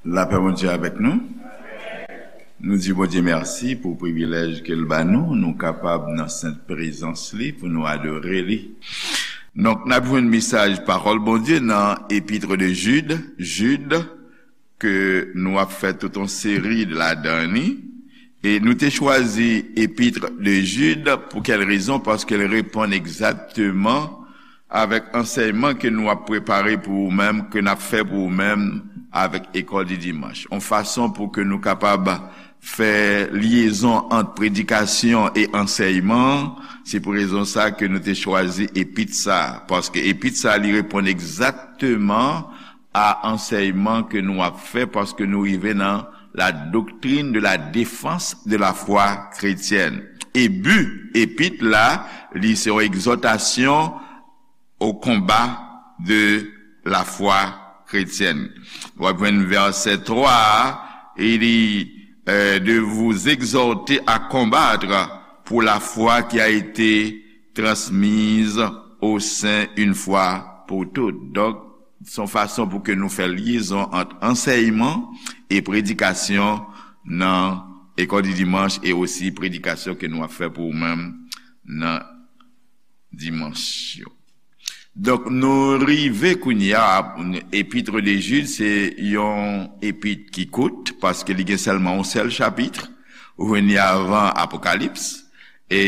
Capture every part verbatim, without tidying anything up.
Lapè Bondye avèk nou. Nou di Bondye mèsi pou privilèj ke l ba nou, nou kapab nan sent prezans li pou nou adore li. Donk, n ap jwenn mesaj pawòl Bondye nan Épître de Jude, Jid, ke nou ap fè tout yon seri ladan li. E nou te chwazi Épître de Jude pou kèl rezon? Paske l reponn egzakteman avèk ansèyman ke nou ap prepare pou ou menm, ke n ap fè pou ou menm avèk École du Dimanche. Yon fason pou ke nou kapab fè lyezon ant predikasyon e ansèyman, se pou rezon sa ke nou te chwazi epit sa, paske epit sa li reponn egzakteman a ansèyman ke nou ap fè, paske nou rive nan la doctrine de la défense de la foi chrétienne. E bi epit la, li se yon egzòtasyon au combat de la foi chrétienne. W ap jwenn vèsè twa a, e li, euh, de vous exhorter à combattre pour la foi qui a été transmise aux saints une fois pour toutes. Donk, se yon fason pou ke nou fè lyezon ant ansèyman e predikasyon nan École du Dimanche e osi predikasyon ke nou ap fè pou ou menm nan dimanch yo. Donk, nou rive kounye a, Épître de Jude, se yon epit ki kout, paske li gen sèlman yon sèl chapit, ou jwenn li avan Apokalips, e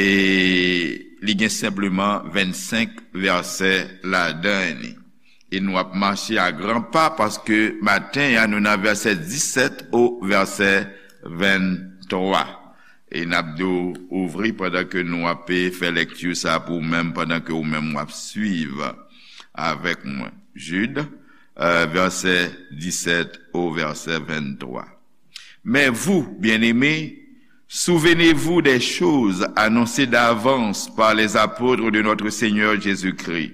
li gen senpleman vennsenk vèsè ladan li. E nou ap mache a gran pa, paske maten an, nou nan vèsè disèt o vèsè venntwa. E n ap di w ouvri pandan ke nou ap fè lekti sa pou ou menm, pandan ke ou menm w ap swiv avèk mwen. Jid, euh, vèsè disèt o vèsè venntwa. Mais vous, bien-aimés, souvenez-vous des choses annoncées d'avance par les apôtres de notre Seigneur Jésus-Christ.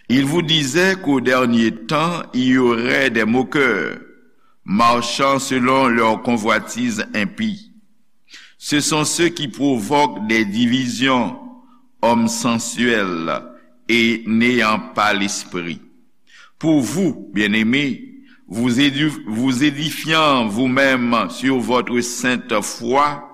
Ils vous disaient qu'au dernier temps, il y aurait des moqueurs, marchant selon leurs convoitises impies. Ce sont ceux qui provoquent des divisions, hommes sensuels et n'ayant pas l'esprit. Pour vous, bien-aimés, vous édi-, vous édifiant vous-même sur votre sainte foi,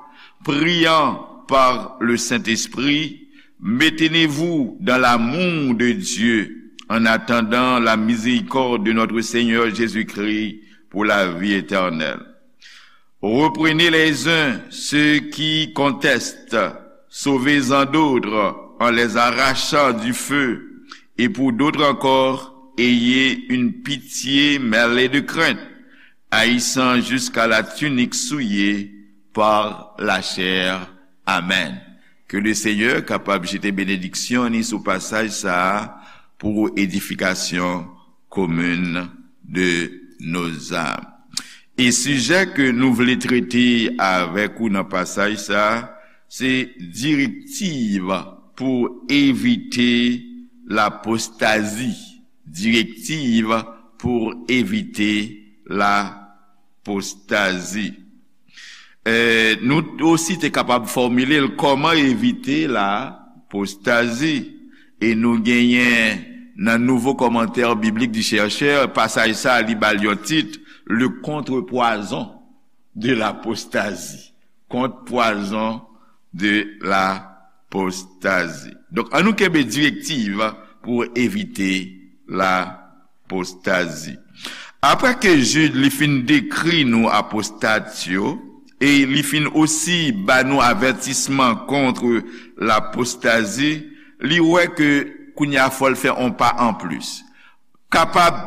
priant par le Saint-Esprit, maintenez-vous dans l'amour de Dieu, en attendant la miséricorde de notre Seigneur Jésus-Christ pour la vie éternelle. Reprenez les uns ceux qui contestent, sauvez-en d'autres en les arrachant du feu, et pour d'autres encore, ayez une pitié mêlée de crainte, haïssant jusqu'à la tunique souillée par la chair. Amen. Ke le Seigneur kapab jete benediksyon ni sou pasaj sa a pou edifikasyon komin de nos âmes. E sijè ke nou vle trete avèk ou nan pasaj sa a, se direktiv pou evite lapostazi. Direktiv pou evite lapostazi. Eh, nou osi te kapab fòmile l, kòman evite lapostazi. E nou genyen nan Nouveau Commentaire Biblique du Chercheur, pasaj sa a, li ba l yon tit, Le contre-poison de l'apostasie. Contre-poison de l'apostasie. Donk, ann nou kenbe direktiv pou evite lapostazi. Apre ke Jid li fin dekri nou apostat yo, e li fin osi ba nou avètisman kont lapostazi, li wè ke kounye a fò l fè on pa anplis. Kapab,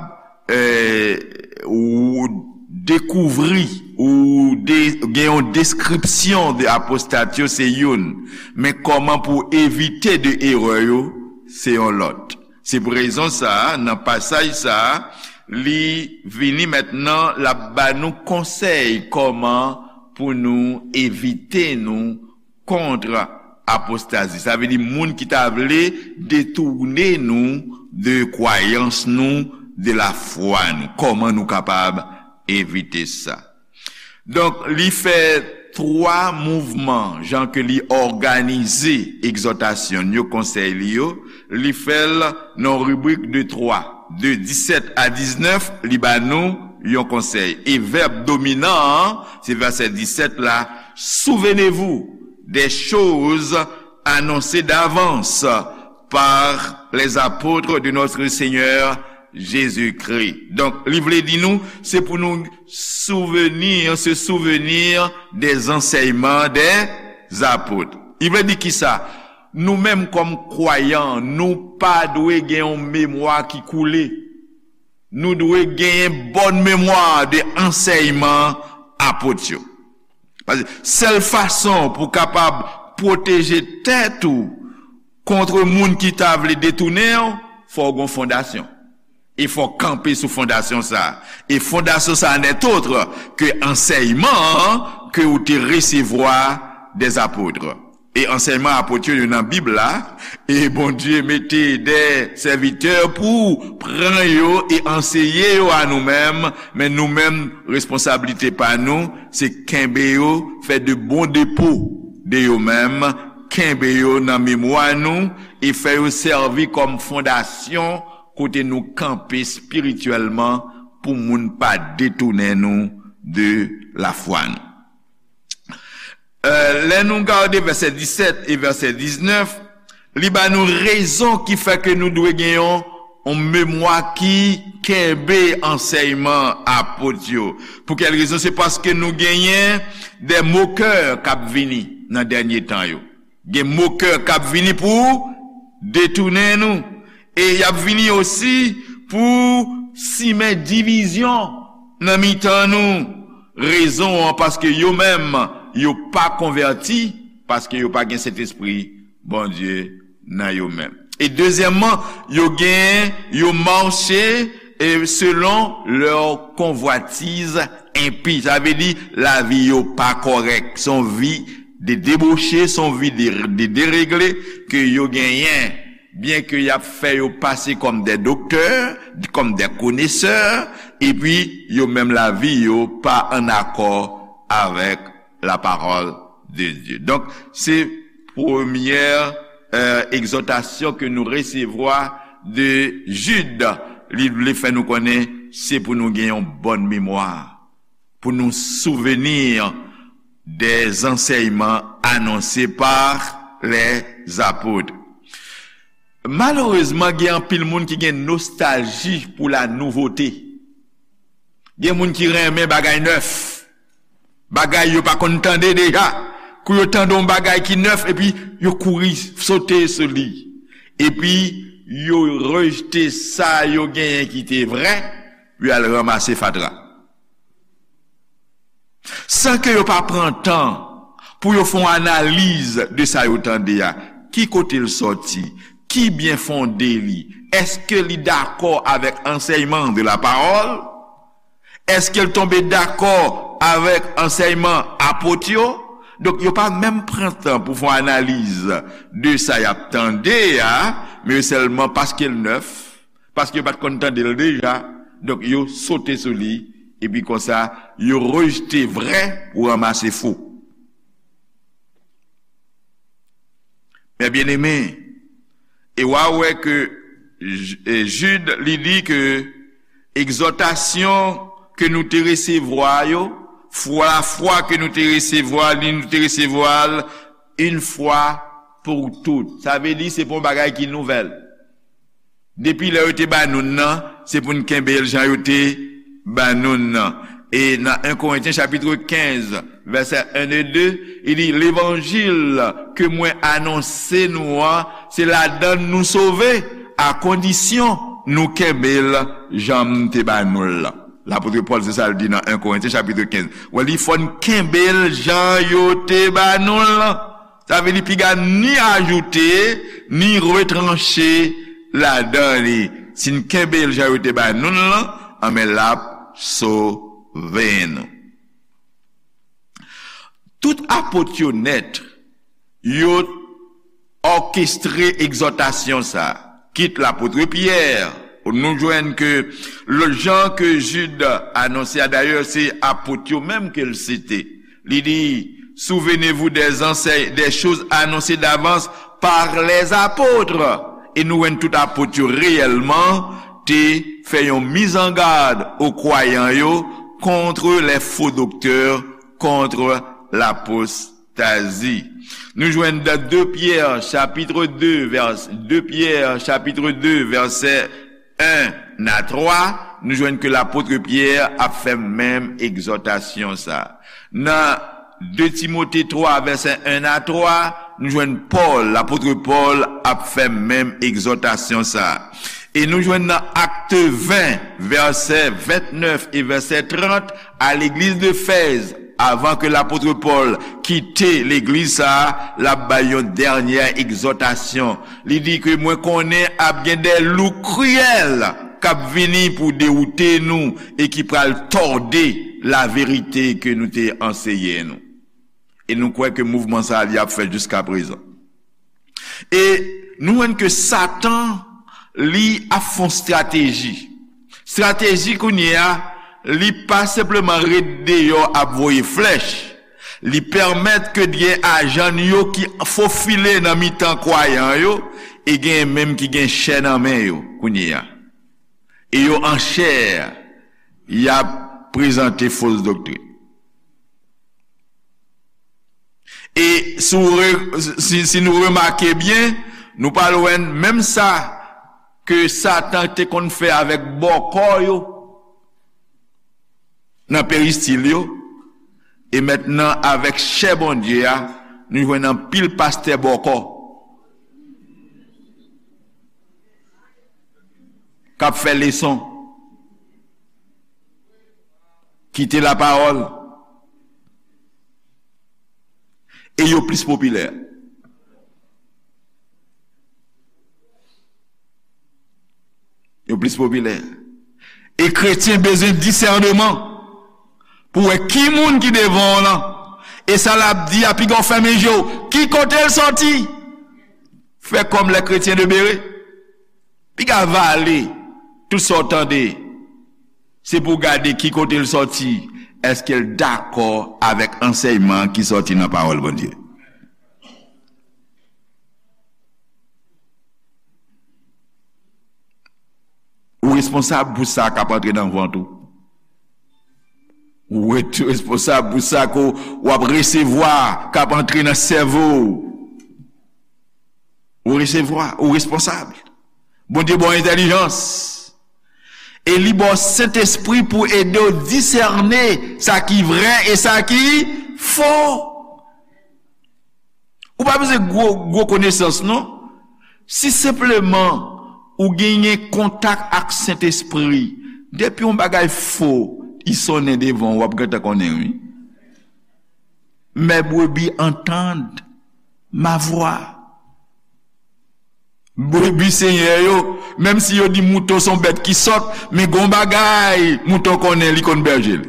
eh, ou dekouvri, ou de-, gen yon deskripsyon de apostat yo, se youn. Men kòman pou evite de erè yo, se yon lòt. Se pou rezon sa a, nan pasaj sa a, li vini mentnan, l ap ba nou konsèy kòman pou nou evite nou kont apostazi. Sa vle di moun ki ta vle detounen nou de kwayans nou, de lafwa nou. Kòman nou kapab evite sa? Donk, li fè twa mouvman, jan ke li òganize egzòtasyon l yo, konsèy li yo, li fè l nan ribrik de twa. De disèt a diznèf, li ba nou yon konsèy. E vèb dominan an, se vèsè disèt la, souvenez-vous des choses annoncées d'avance par les apôtres de notre Seigneur Jésus-Christ. Donk, li vle di nou, se pou nou souvenir, se souvenir des enseignements des apôtres. Li vle di kisa? Nou menm kòm kwayan, nou pa dwe gen yon memwa ki koule. Nou dwe genyen bòn memwa de ansèyman apot yo. Paske sèl fason pou w kapab pwoteje tèt ou kont moun ki ta vle detounen w, fò w gen fondasyon. E fò w kanpe sou fondasyon sa a. E fondasyon sa a n'est autre que ansèyman an ke ou te resevwa des apôtres. E ansèyman apot yo, yo nan Bib la, e Bondye mete de sèvitè pou pran yo e anseye yo a nou menm, men nou menm, responsablite pa nou, se kenbe yo, fè de bon depo de yo menm, kenbe yo nan memwa nou, e fè yo sèvi kòm fondasyon kote nou kanpe espirityèlman pou moun pa detounen nou de lafwa nou. Euh, lè nou gade vèsè disèt e vèsè diznèf, li ba nou rezon ki fè ke nou dwe gen yon, yon memwa ki kenbe ansèyman apot yo. Pou kèl rezon? Se paske nou genyen de mokè k ap vini nan dènye tan yo. Gen mokè k ap vini pou detounen nou. E y ap vini osi pou simen divizyon nan mitan nou. Rezon an, paske yo menm, yo pa konvèti, paske yo pa gen Sentespri Bondye nan yo menm. E dezyèmman, yo gen, yo mache, e selon lè konvwatiz enpi. Sa vle di, lavi yo pa kòrèk. Se yon vi de deboche, se yon vi de, de deregle ke yo genyen. Byen ke y ap fè yo pase kòm de doktè, kòm de konesè, epi yo menm lavi yo pa an akò avèk la parole de Dieu. Donk, se premyè, euh, egzòtasyon ke nou resevwa de Jid. Li vle fè nou konnen se pou nou gen yon bòn memwa, pou nou souvenir des enseignements annoncés par les apôtres. Malerezman, gen anpil moun ki gen nostalji pou la nouvote. Gen moun ki renmen bagay nèf, bagay yo pa konn tande deja. Kou yo tande yon bagay ki nèf, epi yo kouri sote sou li. Epi yo rejte sa yo genyen ki te vrè, yo al ranmase fatra. San ke yo pa pran tan pou yo fè yon analiz de sa yo tande a. Ki kote l sòti? Ki byen fonde li? Èske li dakò avèk ansèyman de la parole? Èske l tonbe dakò avèk ansèyman apot yo? Donk, yo pa menm pran tan pou fè yon analiz de sa y ap tande a, men yo sèlman, paske l nèf, paske yo pa t konn tande l deja, donk yo sote sou li, epi konsa, yo rejte vrè pou ranmase fo. Men byeneme, e w a wè ke J-, e Jid, li di ke egzòtasyon ke nou te resevwa yo, fwa, lafwa ke nou te resevwa, li nou te resevwa l, une fois pour toutes. Sa vle di se pa yon bagay ki nouvèl. Depi lè yo te ba nou l nan, se pou n kenbe l jan yo te ba nou l nan. E nan en Korentyen chapit kenz, vèsè en e de, li di, levanjil ke mwen anonse nou an, se ladan l nou sove, a kondisyon nou kenbe l jan m te ba nou l lan. Lapot Pòl, se sa l di nan en Korentyen chapit kenz. Wè, li fò n kenbe l jan yo te ba nou l lan. Sa vle di piga ni ajoute, ni retranche ladan li. Si n kenbe l jan yo te ba nou l lan, anben l ap sove nou. Tout apot yo nèt, yo òkestre egzòtasyon sa a. Kit lapot Pyè, nou jwenn ke le jan ke Jid anonse a, dayè, se apot yo menm ke l site. Li di, souvenez-vous des enseignes, des choses annoncées d'avance par les apôtres. E nou jwenn tout apot yo reyèlman te fè yon mizangad o kwayan yo contre les faux docteurs, contre l'apostasie. Nou jwenn dan de Pyè, chapit de, vès-, de Pyè, chapit de, vèsè en a twa, nou jwenn ke lapot Pyè ap fè menm egzòtasyon sa. Nan de Timote twa, vèsè en a twa, nou jwenn Pòl, lapot Pòl ap fè menm egzòtasyon sa. E nou jwenn nan Akt ven, vèsè ventnèf e vèsè trant, a legliz de Fèz, avan ke lapot Pòl kite legliz sa a, l ap bay yon dènyè egzòtasyon. Li di ke mwen konnen ap gen de lou kriyèl k ap vini pou dewoute nou e ki pral tòde laverite ke nou te anseye nou. E nou kwè ke mouvman sa a li ap fèt jiska prezan. E nou jwenn ke Satan, li ap fè yon estrateji. Estrateji kounye a, li pa senpleman ret deyò ap voye flèch. Li pèmèt ke gen ajan yo ki fofile nan mitan kwayan yo, e gen menm ki gen chè nan men yo kounye a. E yo an chè, y ap prezante fos doktrin. E si w re-, si, si nou remake byen, nou pral wè menm sa ke Satan te konn fè avèk bòkò yo nan peristil yo, e mentnan avèk chè Bondye a, nou jwenn anpil pastè bòkò k ap fè leson, kite lapawòl, e yo plis popilè. Yo plis popilè. E kretyen bezwen disèneman pou wè ki moun ki devan w lan. E sa l ap di a, piga w fèmen je w. Ki kote l sòti? Fè kòm les chrétiens de Béré. Piga vale tout sa w tande. Se pou w gade ki kote l sòti. Èske l dakò avèk ansèyman ki sòti nan pawòl Bondye? Ou responsab pou sa k ap antre nan vant ou. Ou ret responsab pou sa ke w ap resevwa k ap antre nan sèvo w. Ou resevwa, ou responsab. Bondye ba w entèlijans. E li ba w Sentespri pou ede w disène sa ki vrè e sa ki fo. Ou pa bezwen gwo, gwo konesans, non. Si senpleman ou genyen kontak ak Sentespri, depi yon bagay fo, li sonnen devan w, w ap gentan konnen, wi. Mes brebis entendent ma voix. Brebi Senyè yo, menm si yo di mouton se yon bèt ki sòt, men gon bagay mouton konnen, li konn bèje l.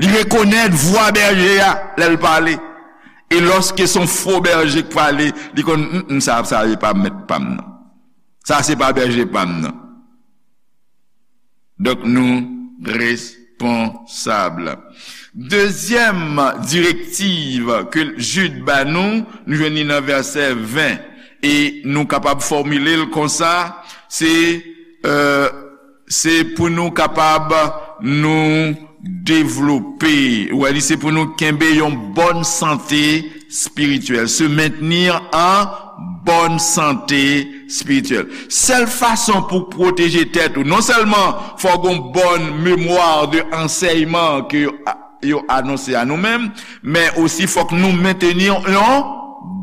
Li rekonèt vwa bèje a lè l pale. E lòske se yon fo bèje k pale, li konn, "Mm, mm, sa, sa se pa mèt pa m nan. Sa se pa bèje pa m nan." Donk, nou responsab. Dezyèm direktiv ke Jid ba nou, nou jwenn li nan vèsè ven, e nou kapab fòmile l konsa, se, euh, se pou nou kapab nou devlope. Ou wè, li se pou nou kenbe yon bòn sante espirityèl, se mentenir an bòn sante espirityèl. Sèl fason pou pwoteje tèt ou, non sèlman fò w gen yon bòn memwa de ansèyman ke yo, yo anonse a nou menm, men osi fòk nou mentenir yon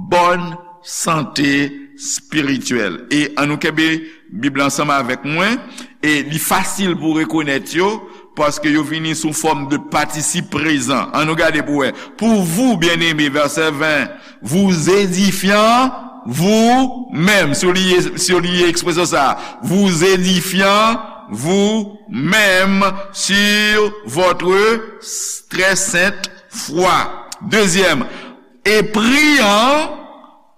bòn sante espirityèl. E ann nou kenbe Bib la ansanm avèk mwen, e li fasil pou rekonèt yo, paske yo vini sou fòm de patisip prezan. Ann nou gade pou wè. Pour vous, bien-aimés, vèsè ven, vous édifiant vous-même. Souliye, souliye ekspresyon sa. Vous édifiant vous-même sur votre très sainte foi. Dezyèm, et priant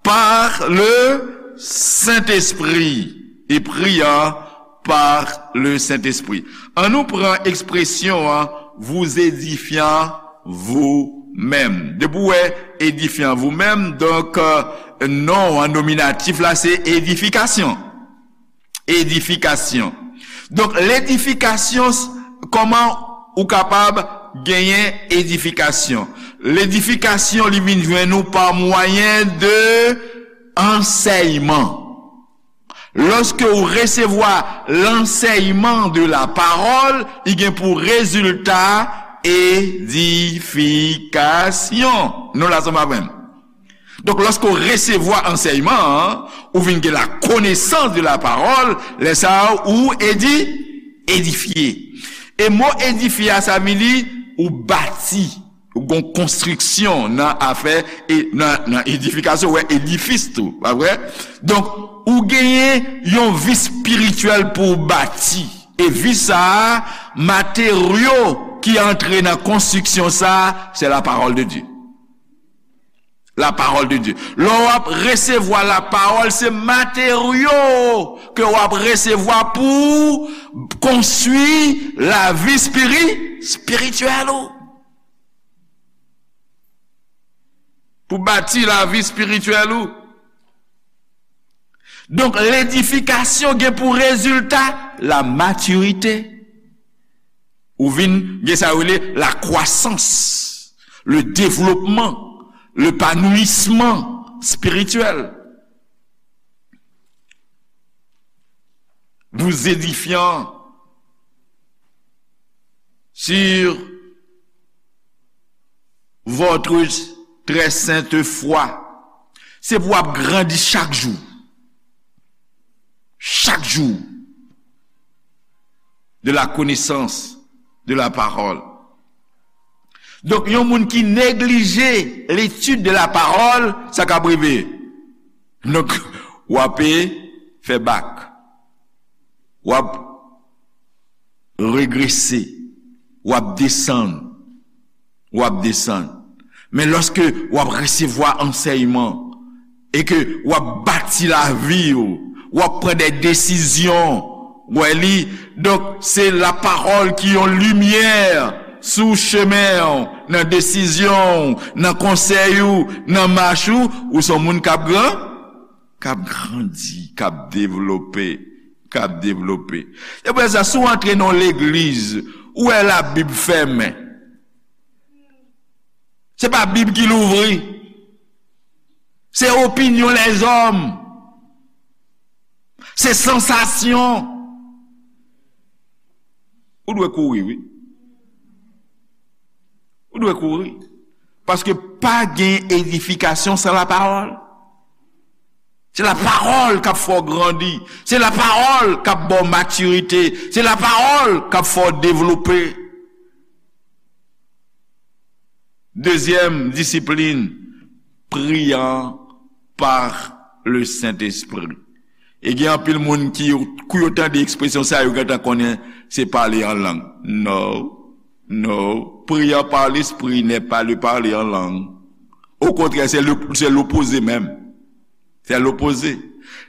par le Saint-Esprit. Et priant par le Saint-Esprit. Ann nou pran ekspresyon an, vous édifiant vous-même. Depi w wè édifiant vous-même, donk, euh, non an nominatif la, se edifikasyon. Edifikasyon. Donk, ledifikasyon, kòman ou kapab genyen edifikasyon? Ledifikasyon, li vin jwenn ou pa mwayen de ansèyman. Lòske ou resevwa lansèyman de la pawòl, li gen pou rezilta edifikasyon. Nou la, sa m ap jwenn. Donk, lòske w resevwa ansèyman an, ou vin gen la konesans de la pawòl, lè sa a, ou edi, edifye. E mo edifye a, sa vin di, ou bati, ou gon konstriksyon nan afè, e nan, nan edifikasyon, ou wè edifis tou, pa vre? Donk, ou genyen yon vi espirityèl pou w bati. E vi sa a, materyo ki antre nan konstriksyon sa a, se la pawòl de Dye. La pawòl de Dye. Lè w ap resevwa la pawòl, se materyo ke w ap resevwa pou konstwi lavi espiri-, espirityèl ou. Pou bati lavi espirityèl ou. Donk, ledifikasyon gen pou rezilta la matirite. Ou vin gen sa yo rele la kwasans, le devlopman, lepanouisman espirityèl. Vous édifiant sur votre très sainte foi. Se pou w ap grandi chak jou. Chak jou. De la connaissance de la parole. Donk, yon moun ki neglije l'étude de la parole, sa k ap rive? Donk, w ap fè bak. W ap regrese. W ap desann. W ap desann. Men lòske w ap resevwa ansèyman e ke w ap bati lavi w, w ap pran de desizyon, w wè li. Donk, se lapawòl ki yon limyè sou chemen w, nan desizyon w, nan konsèy ou, nan mach ou, ou se yon moun k ap gran, k ap grandi, k ap devlope, k ap devlope. Se pou sa, si w antre nan yon legliz, ou wè Labib fèmen. Se pa Bib ki louvri. Se opinyon lèzòm. Se sansasyon. Ou dwe kouri, wi. Ou dwe kouri. Paske pa gen edifikasyon san lapawòl. Se lapawòl k ap fè w grandi. Se lapawòl k ap ba w matirite. Se lapawòl k ap fè w devlope. Dezyèm disiplin, priant par le Saint-Esprit. E gen anpil moun ki, kou yo tande ekspresyon sa, yo gentan konnen se pale an lang. No, no. Priant par l'Esprit n'est pas le parler en langue. Au contraire, c'est le, c'est l'opposé même. C'est l'opposé.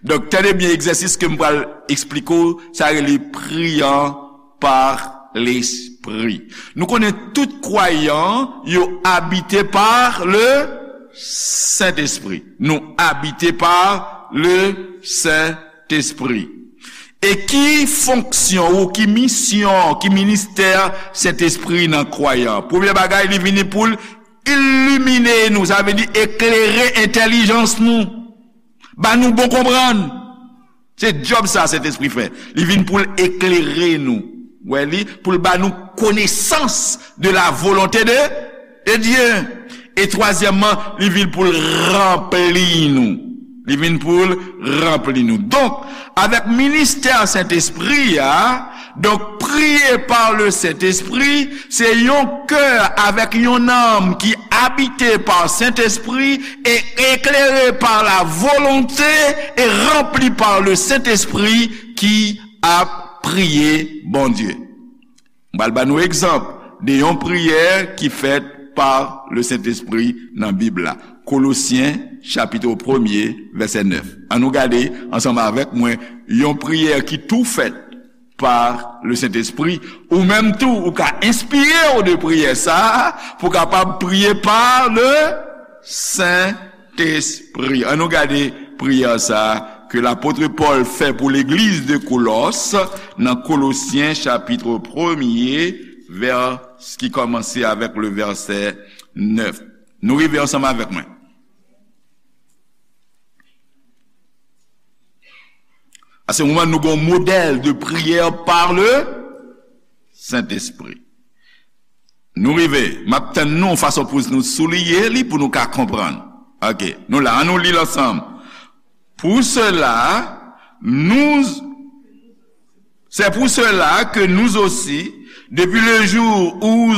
Donk, tande byen egzèsis ke m pral eksplike w, sa rele priant par l'Esprit. Nou konnen tout kwayan yo abite par le Saint-Esprit. Nou abite par le Saint-Esprit. E ki fonksyon ou ki misyon, ki ministè Sentespri nan kwayan? Premye bagay, li vini pou l ilimine nou, sa vle di eklere entèlijans nou. Ba nou bon konprann. Se djòb sa Sentespri fè. Li vin pou l eklere nou. Wè li, pou l ba nou konesans de la volonté de, de Dieu. E twazyèmman, li vin pou l ranpli nou. Li vin pou l ranpli nou. Donk, avèk ministè Sentespri a, donk, priye pa le Sentespri, se yon kè avèk yon nanm ki abite pa Sentespri e eklere pa la volonte e ranpli pa le Sentespri ki ap priye Bondye. M pral ba nou egzanp de yon priyè ki fèt pa le Sentespri nan Bib la. Kolosyen, chapit premye, vèsè nèf. Ann nou gade ansanm avèk mwen yon priyè ki tou fèt pa le Sentespri. Ou menm tou, ou ka enspire w de priyè sa a pou w kapab priye pa le Sentespri. Ann nou gade priyè sa a. ke lapot Pòl fè pou legliz de Kolòs nan Kolosyen chapit premye, vè, ki kòmanse avèk le vèsè nèf. Nou rive ansanm avèk mwen. A se moman nou gon modèl de priyè par le Sentespri. Nou rive, m ap tann nou fason pou nou souliye li pou nou ka konprann. Ok, nou la, an nou li l ansanm. Pour cela, nous, c'est pour cela que nous aussi, depuis le jour où,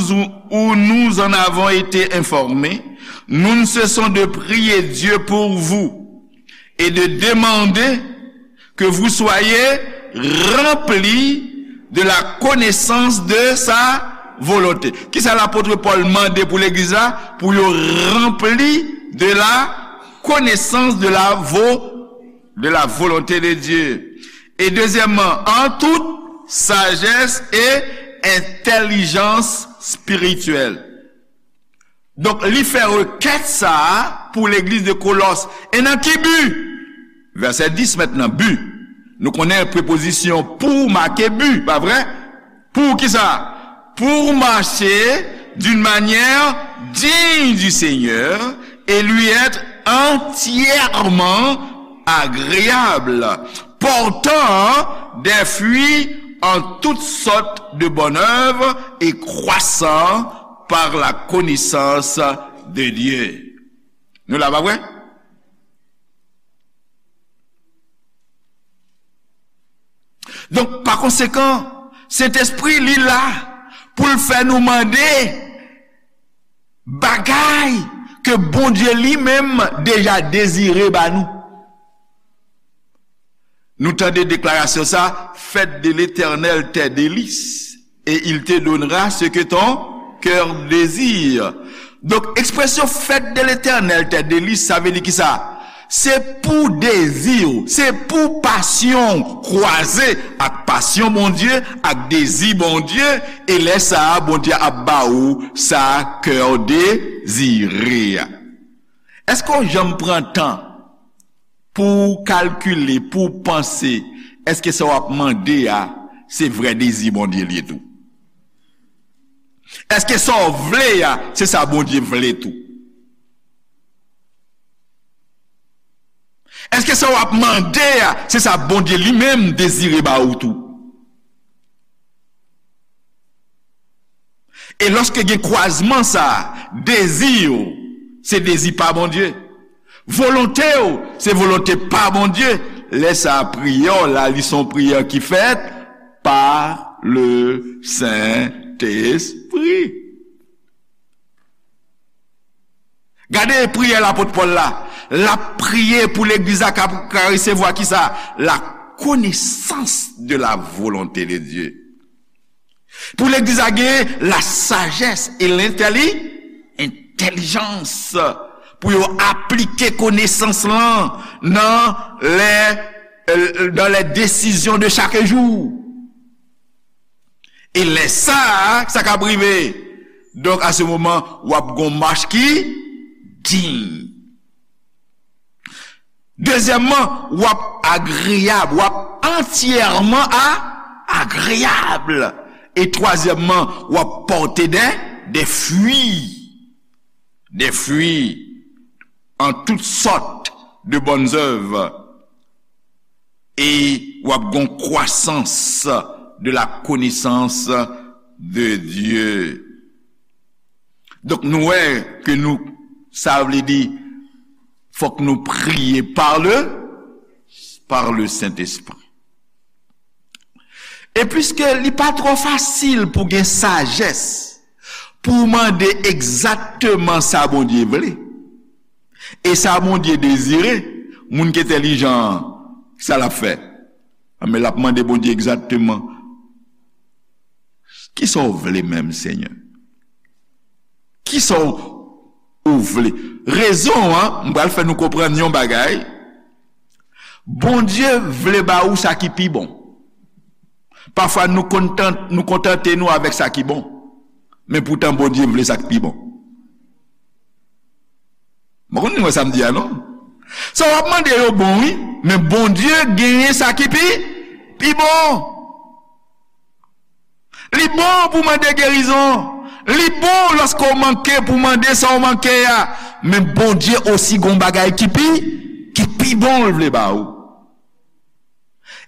où nous en avons été informés, nous ne cessons de prier Dieu pour vous et de demander que vous soyez remplis de la connaissance de sa volonté. Kisa lapot Pòl mande pou legliz la? Pou yo ranpli de la connaissance de la vo-, de la volonté de Dieu. Et deuxièmement, en toute sagesse et intelligence spirituelle. Donk, li fè rekèt sa a pou legliz de Kolòs. E nan ki bi? Vèsè dis mentnan, bi. Nou konnen prepozisyon pour make bi, pa vre? Pour kisa? Pour marcher d'une manière digne du Seigneur et lui être entièrement agréable, portant des fruits en toutes sortes de bonnes œuvres et croissant par la connaissance de Dieu. Nou la, pa vre? Donk, pa konsekan, Sentespri, li la pou l fè nou mande bagay ke Bondye li menm deja dezire ba nou. Nou tande deklarasyon sa, fête de l'Éternel tes délices, et il te donnera ce que ton cœur désire. Donk, ekspresyon fête de l'Éternel tes délices, sa vle di kisa? Se pou dezi w, se pou pasyon w kwaze ak pasyon Bondye, ak dezi Bondye, e lè sa a, Bondye ap ba ou sa kè w dezire a. Èske w janm pran tan pou w kalkile, pou w panse, èske sa w ap mande a, se vrè dezi Bondye l ye tou? Èske sa w vle a, se sa Bondye vle tou? Èske sa w ap mande a, se sa Bondye li menm dezire ba ou tou? E lòske gen kwazman sa a, dezi w, se dezi pa Bondye. Volonte w, se volonte pa Bondye. Lè sa a, priyè w la, li se yon priyè ki fèt pa le Sentespri. Gade priyè lapot Pòl la. L ap priye pou legliz la ka, ka resevwa kisa? La connaissance de la volonté de Dieu. Pou legliz la gen la sagesse et l'intelli-, entèlijans. Pou yo aplike konesans lan nan lè, euh, dans les décisions de chaque jour. E lè sa a, sa k ap rive? Donk, a se moman, w ap gon mach ki diy. Dezyèmman, w ap agreyab, w ap antyèman a, agreyab. E twazyèmman, w ap pòte de, de fwi. De fwi en toutes sortes de bonnes œuvres. E w ap gon kwasans de la connaissance de Dieu. Donk, nou wè ke nou, sa vle di, fòk nou priye par le, par le Saint-Esprit. E piske li pa twò fasil pou gen sajès, pou w mande egzakteman sa Bondye vle, e sa Bondye dezire, moun ki entèlijan an, sa l ap fè? Anben, l ap mande Bondye egzakteman, "Kisa w vle menm, Senyè? Kisa w, ou vle?" Rezon an, m pral fè nou konprann yon bagay. Bondye vle ba ou sa ki pi bon. Pafwa, nou kontan-, nou kontante nou avèk sa ki bon. Men poutan, Bondye vle sa k pi bon. Mwen konn nou wè sa m di a, non? Sa w ap mande yo bon, wi, men Bondye genyen sa ki pi, pi bon. Li bon pou mande gerizon. Li bon lòske w manke pou mande sa w manke a. Men Bondye osi gon bagay ki pi, ki pi bon l vle ba ou.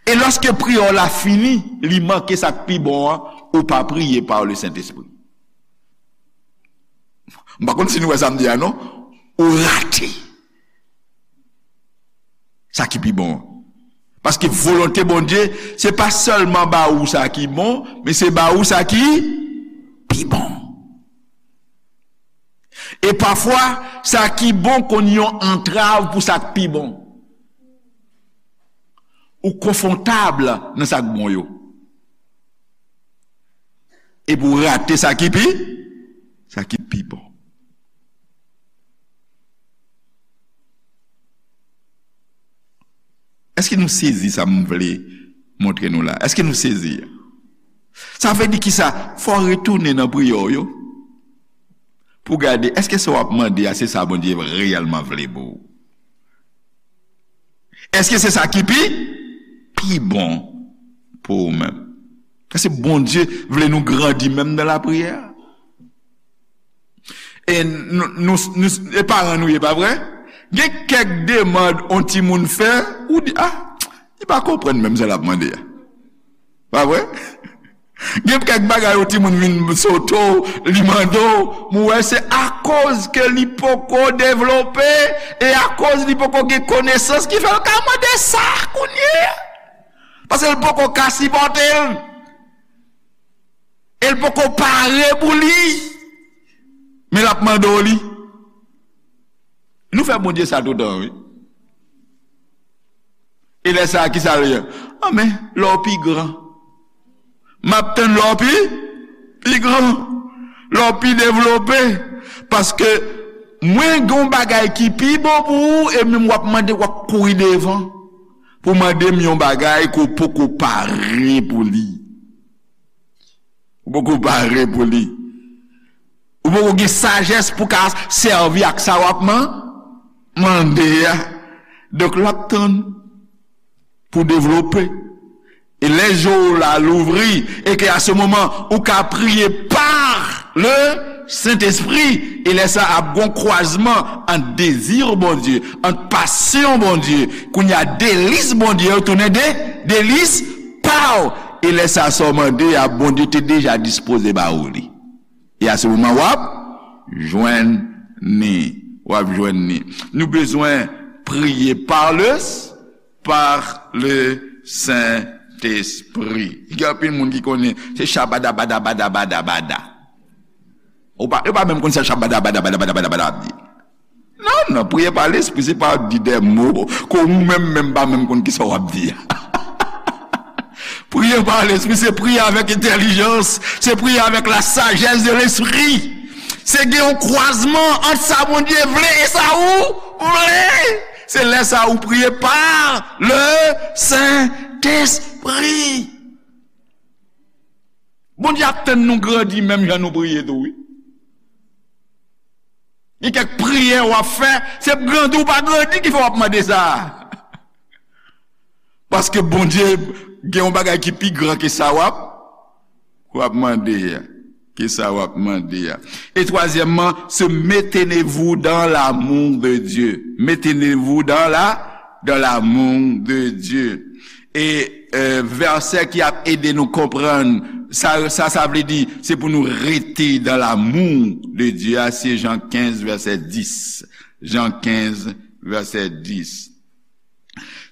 E lòske priyè w la fini, li manke sa k pi bon an, ou pa priye pa le Sentespri. M pa konn si nou wè sa m di a non. Ou rate sa ki pi bon an. Paske volonte Bondye, se pa sèlman ba ou sa ki bon, men se ba ou sa ki pi bon. E pafwa, sa ki bon konn yon antrav pou sa k pi bon. Ou konfòtab nan sa k bon yo. Epi w rate sa ki pi, sa ki pi bon. Èske nou sezi sa m vle montre nou la? Èske nou sezi? Sa vle di kisa? Fò w retounen nan priyè w yo pou w gade, èske sa w ap mande a, se sa Bondye reyèlman vle pou ou? Èske se sa ki pi, pi bon pou ou menm? Èske Bondye vle nou grandi menm nan lapriyè? E nou, nou, nou, e paran nou ye, pa vre? Gen kèk demann on timoun fè, ou di, ah, li pa konprann menm sa l ap mande a. Pa vre? Gen kèk bagay yon timoun vin sote w, li mande w, m wè se akoz ke li poko devlope, e akoz li poko gen konesans ki fè l ka mande sa kounye a. Paske l poko ka sipòte l. E l poko pare pou li. Men l ap mande w li. Nou fè Bondye sa toutan, wi. E lè sa a, kisa l ye? Anben, lè w pi gran. M ap tann lè w pi, pi gran. Lè w pi devlope. Paske mwen gen yon bagay ki pi bon pou ou, e menm w ap mande, w ap kouri devan pou mande m yon bagay ke w poko pare pou li. Ou poko pare pou li. Ou poko gen sajès pou ka sèvi ak sa w ap man-, mande a. Donk, l ap tann pou devlope. E lè je w la louvri, e ke a se moman, ou ka priye pa le Sentespri, e lè sa ap gon kwazman ant dezi Bondye, ant pasyon Bondye, kounye a delis Bondye yo tounen de, delis pa w. E lè sa sa w mande a, Bondye te deja dispoze ba ou li. E a se moman w ap jwenn ni. W ap jwenn ni. Nou bezwen priye pa le, pa le Sentespri. Gen anpil moun ki konnen se shabada bada bada bada bada. Ou pa, yo pa menm konn sa shabada bada bada bada bada bada ap di. Non, non, priye pa Lespri, se pa di de mo ke ou menm menm pa menm konn kisa w ap di a. Priye pa Lespri, se priye avèk entèlijans, se priye avèk la sajès de Lespri. Se gen yon kwazman ant sa Bondye vle e sa ou vle. Se lè sa ou priye pa le Sentespri. Bondye ap tann nou grandi menm jan nou priye tou, wi. Gen kèk priyè w ap fè, se grandi ou pa grandi ki fè w ap mande sa. Paske Bondye gen yon bagay ki pi gran ke sa w ap, w ap mande a. Ke sa w ap mande a. E twazyèmman, se maintenez-vous dans l'amour de Dieu. Maintenez-vous dans la, dans l'amour de Dieu. E, euh, vèsè ki ap ede nou konprann sa, sa, sa vle di, se pou nou rete dans l'amour de Dieu a, se Jan kenz, vèsè dis. Jan kenz, vèsè dis.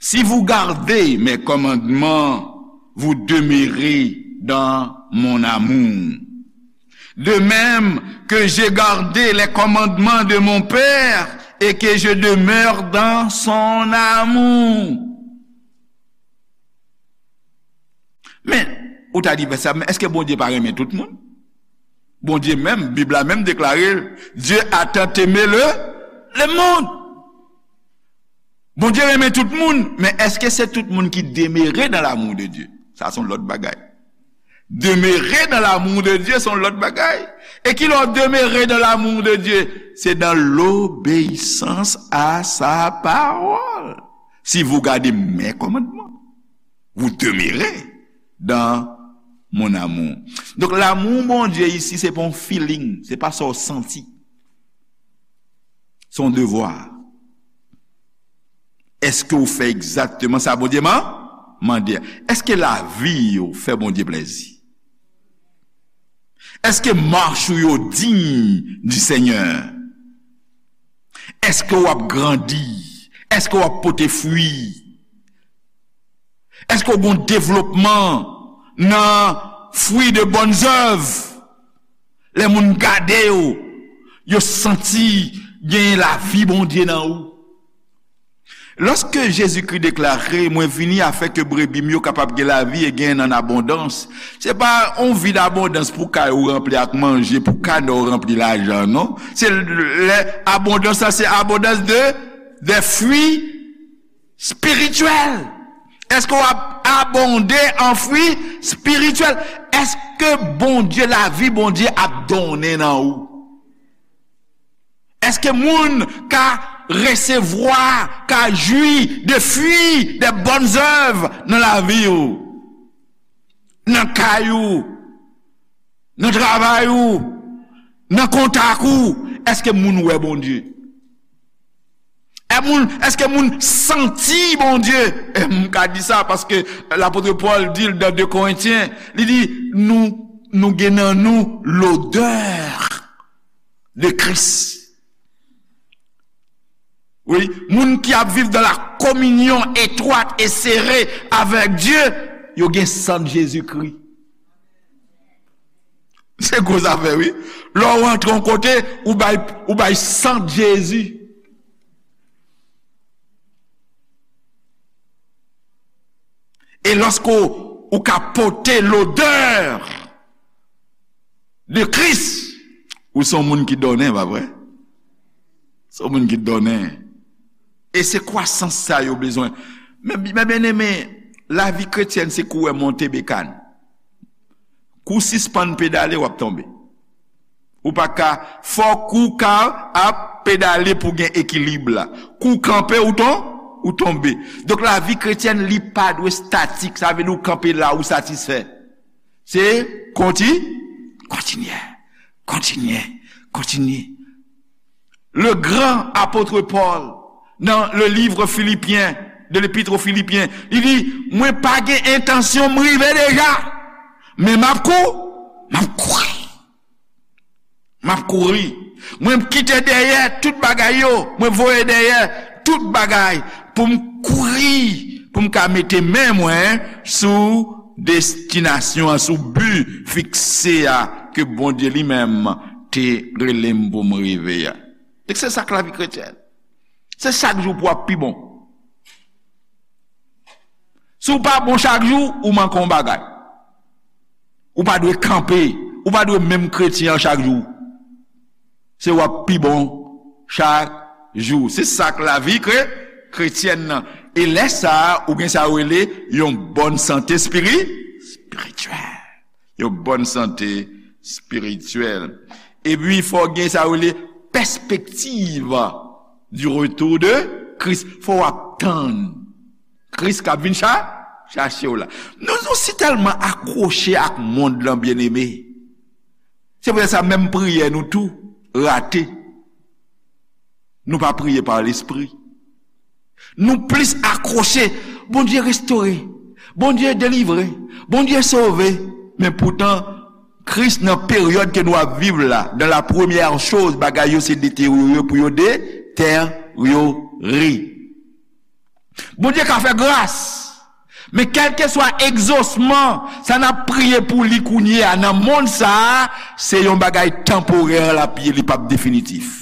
Si vous gardez mes commandements, vous demeurez dans mon amour. De même que j'ai gardé les commandements de mon Père et que je demeure dans son amour. Men, ou ta di, "Ben sa, men èske Bondye pa renmen tout moun?" Bondye menm, Bib la menm deklare, Dieu a tant aimé le, le monde. Bondye renmen tout moun, men èske se tout moun ki demere dans l'amour de Dieu? Sa se yon lòt bagay. Demeurer dans l'amour de Dieu, se yon lòt bagay. E ki lè w demeurer dans l'amour de Dieu? C'est dans l'obéissance à sa parole. Si vous gardez mes commandements, vous demeurez dans mon amour. Donk, lanmou Bondye isi, se pa yon feeling, se pa sa w santi. Se yon devwa. Èske w fè egzakteman sa Bondye man-, mande a? Èske lavi w fè Bondye plèzi? Èske mach ou yo diy di Senyè? Èske w ap grandi? Èske w ap pote fwi? Èske w gen devlopman nan fwi de bòn zèv? Lè moun gade w, yo santi gen lavi Bondye nan ou. Lòske Jezikri deklare, "Mwen vini afin ke brebi m yo kapab gen lavi e gen nan abondans," se pa yon vi dabondans pou kay ou ranpli ak manje, pou kanè w ranpli lajan, non. Se lè abondans la, se abondans de, de fwi espirityèl. Èske w ap abonde an fwi espirityèl? Èske Bondye, lavi Bondye ap donnen nan ou? Èske moun ka resevwa, ka jwi de fwi, de bòn zèv nan lavi w, nan kay ou, nan travay ou, nan kontak ou? Èske moun wè Bondye? E moun, èske moun santi Bondye? E m ka di sa paske lapot Pòl di l nan de Korentyen, li di, nou, nou gen nan nou lodè de Kris. Wi, moun ki ap viv dans la communion étroite et serrée avec Dieu, yo gen sant Jezikri. Se gwo zafè, wi. Lè w rantre yon kote, ou bay, ou bay sant Jezi. E lòske w, ou ka pote lodè de Kris, ou se yon moun ki donnen, pa vre? Se yon moun ki donnen. E se kwasans sa yo bezwen. Men, men byeneme, lavi kretyèn se kou w monte bekàn. Kou w sispann pedale, w ap tonbe. Ou pa ka, fòk ou ka ap pedale pou gen ekilib la. Kou w kanpe, ou ton-, ou tonbe. Donk, lavi kretyèn, li pa dwe statik. Sa vle di ou kanpe la, ou satisfè. Se konti-, kontinye, kontinye, kontinye. Le gran apot Pòl, nan le livre Filipyen, de l'Épître aux Philippiens, li di, mwen pa gen entansyon m rive deja, men m ap kou-, m ap kouri. M ap kouri. Mwen kite dèyè tout bagay yo, mwen voye dèyè tout bagay pou m kouri, pou m ka mete men mwen sou destinasyon an, sou bi fikse a ke Bondye li menm te rele m pou m rive a. E se sa k lavi kretyèn. Se chak jou pou w ap pi bon. Si w pa bon chak jou, ou manke yon bagay. Ou pa dwe kanpe. Ou pa dwe menm kretyen an chak jou. Se w ap pi bon chak jou. Se sa k lavi kre-, kretyèn nan. E lè sa a, ou gen sa yo rele yon bòn sante espiri-, espirityèl. Yon bòn sante espirityèl. Epi, fò w gen sa yo rele pèspektiv du retour de Christ. Fò w ap tann Kris k ap vin cha-, chache w la. Nou, nou si tèlman akwoche ak mond lan, byeneme. Se poutèt sa, menm priyè nou tou rate. Nou pa priye pa lespri. Nou plis akwoche. Bondye restore. Bondye delivre. Bondye sove. Men poutan, Kris nan peryòd ke nou ap viv la, dans la première chose, bagay yo se deteryore pou yo deteryore. Bondye ka fè gras. Men kèlkeswa egzosman, sa n ap priye pou li kounye a nan mond sa a, se yon bagay tanporè l ap ye, li p ap definitif.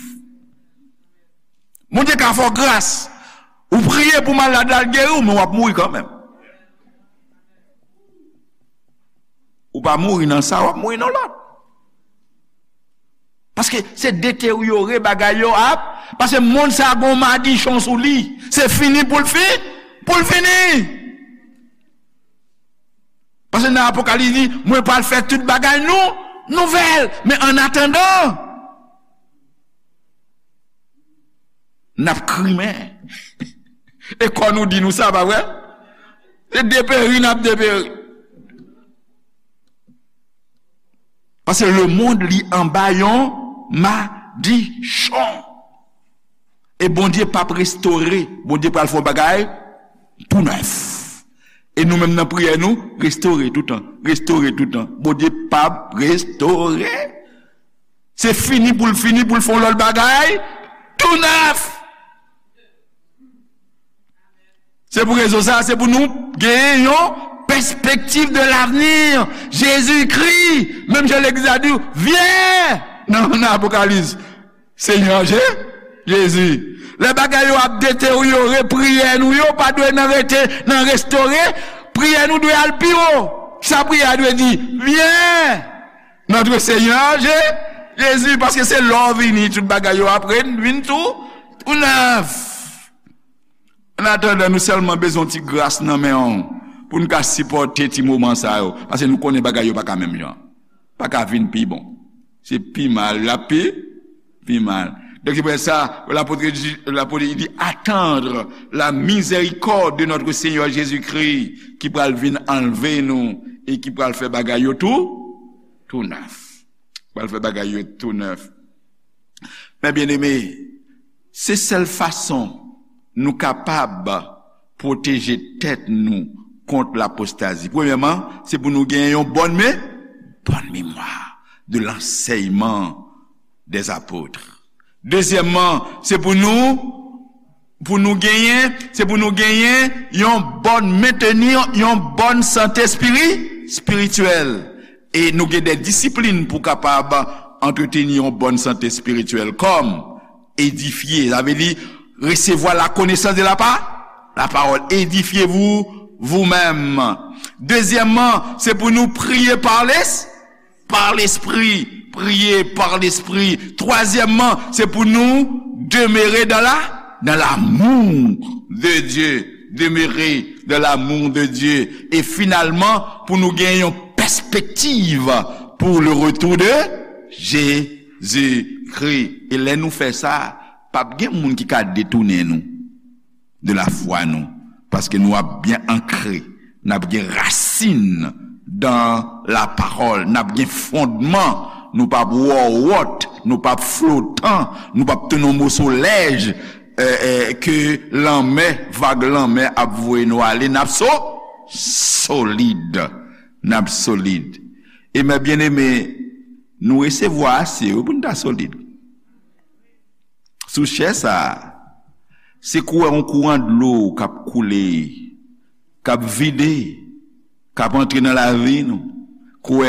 Bondye ka fè w gras. Ou priye pou malad la, l geri w, men w ap mouri kanmenm. Ou pa mouri nan sa, w ap mouri nan lòt. Paske se deteryore bagay yo ap, paske mond sa a gon madichon sou li. Se fini pou l fi-, pou l fini. nan Apokalis di, mwen pral fè tout bagay nou, nouvèl. Men annatandan, n ap krimen. E kò nou di nou sa, pa vre? Se deperi n ap deperi. Paske lemonn li anba yon madichon. E Bondye p ap restore. Bondye pral fè yon bagay tou nèf. E nou menm nan priyè nou, restore toutan, restore toutan. Bondye p ap restore. Se fini pou l fini, pou l fè yon lòt bagay tou nèf. Se pou rezon sa, se pou nou genyen yon pèspektiv de l'avenir. Jezikri, menm jan legliz la di, vyen nan, nan Apokalis. Senyè Je-, Jezi. Lè bagay yo ap deteryore, priyè nou yo pa dwe nan rete nan restore, priyè nou dwe al pi wo. Sa priyè a dwe di, vyen, notre Seigneur Je-, Jezi, paske se lè w vini, tout bagay yo ap re-, vin tou, tou nèf. Annatandan, nou sèlman bezwen yon ti gras nan men w pou n ka sipòte ti moman sa yo, paske nou konnen bagay yo pa ka menm jan. Pa ka vin pi bon. Se pi mal, l ap pi, pi mal. Donk, se pou sa, lapot, lapot di, attendre la miséricorde de notre Seigneur Jésus-Christ, ki pral vin anlve nou e ki pral fè bagay yo tou, tou nèf. Pral fè bagay yo tou nèf. Men byeneme, se sèl fason nou kapab pwoteje tèt nou kont lapostazi. Premyèman, se pou nou gen yon bòn me-, bòn memwa de lansèyman dè apot. Dezyèmman, se pou nou, pou nou genyen, se pou nou genyen yon bòn, mentenir yon bòn sante espiri-, espirityèl. E nou gen de disiplin pou kapab antreteni yon bòn sante espirityèl, kòm edifye, sa vle di resevwa la konesans de la pa-, la pawòl. Édifiez-vous vous-même. Dezyèmman, se pou nou priye pa les-, par l'esprit. Priye pa lespri. Twazyèmman, se pou nou demere dans la, dans l'amour de Dieu. Demere dans l'amour de Dieu. E finalman, pou nou gen yon pèspektiv pour le retour de Jésus-Christ. E lè nou fè sa, p ap gen moun ki ka detounen nou de lafwa nou, paske nou ap byen ankre, n ap gen rasin dans la parole, n ap gen fondman, nou p ap wòwòt, nou p ap flotan, nou p ap tounen yon moso lèj, eh, eh, ke lanmè, vag lanmè ap voye nou ale, n ap so-, solid, n ap solid. E mè byeneme, nou resevwa ase, wi, pou n ta solid. Sou chè sa a, se kou yon kouran dlo k ap koule, k ap vide, k ap antre nan lavi nou. Kou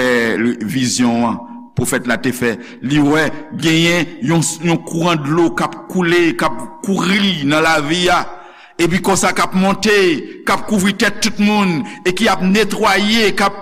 vizyon an, pwofèt la te fè, li wè genyen yon, yon kouran dlo k ap koule, k ap kouri nan lavi a, epi konsa k ap monte, k ap kouvri tèt tout moun, e ki ap netwaye, k ap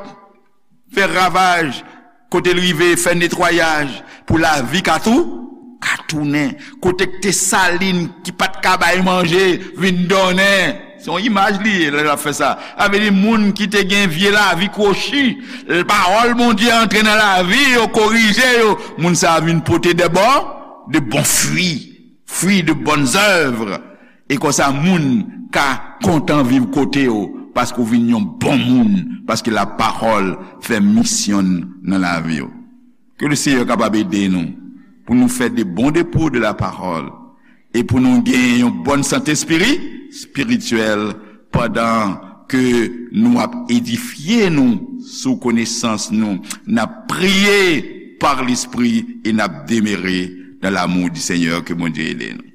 fè ravaj, kote l rive fè netwayaj pou lavi ka tou, ka tounen. Kote k te salin ki pa t ka bay manje vin donnen. Se yon imaj li ye lè l ap fè sa. Sa vle di moun ki te gen vye lavi kwochi, pawòl Bondye antre nan lavi yo, korije yo, moun sa a vin pote de bon, de bon fwi, fruits de bonnes œuvres. E konsa, moun ka kontan viv kote w, paske w vin yon bon moun, paske lapawòl fè misyon l nan lavi w. Ke le Seyè kapab ede nou pou nou fè de bon depo de lapawòl e pou nou gen yon bòn sante espiri-, espirityèl pandan ke nou ap edifye nou sou konesans nou, n ap priye pa Lespri e n ap demere dans l'amour du Seigneur. Ke Bondye ede nou.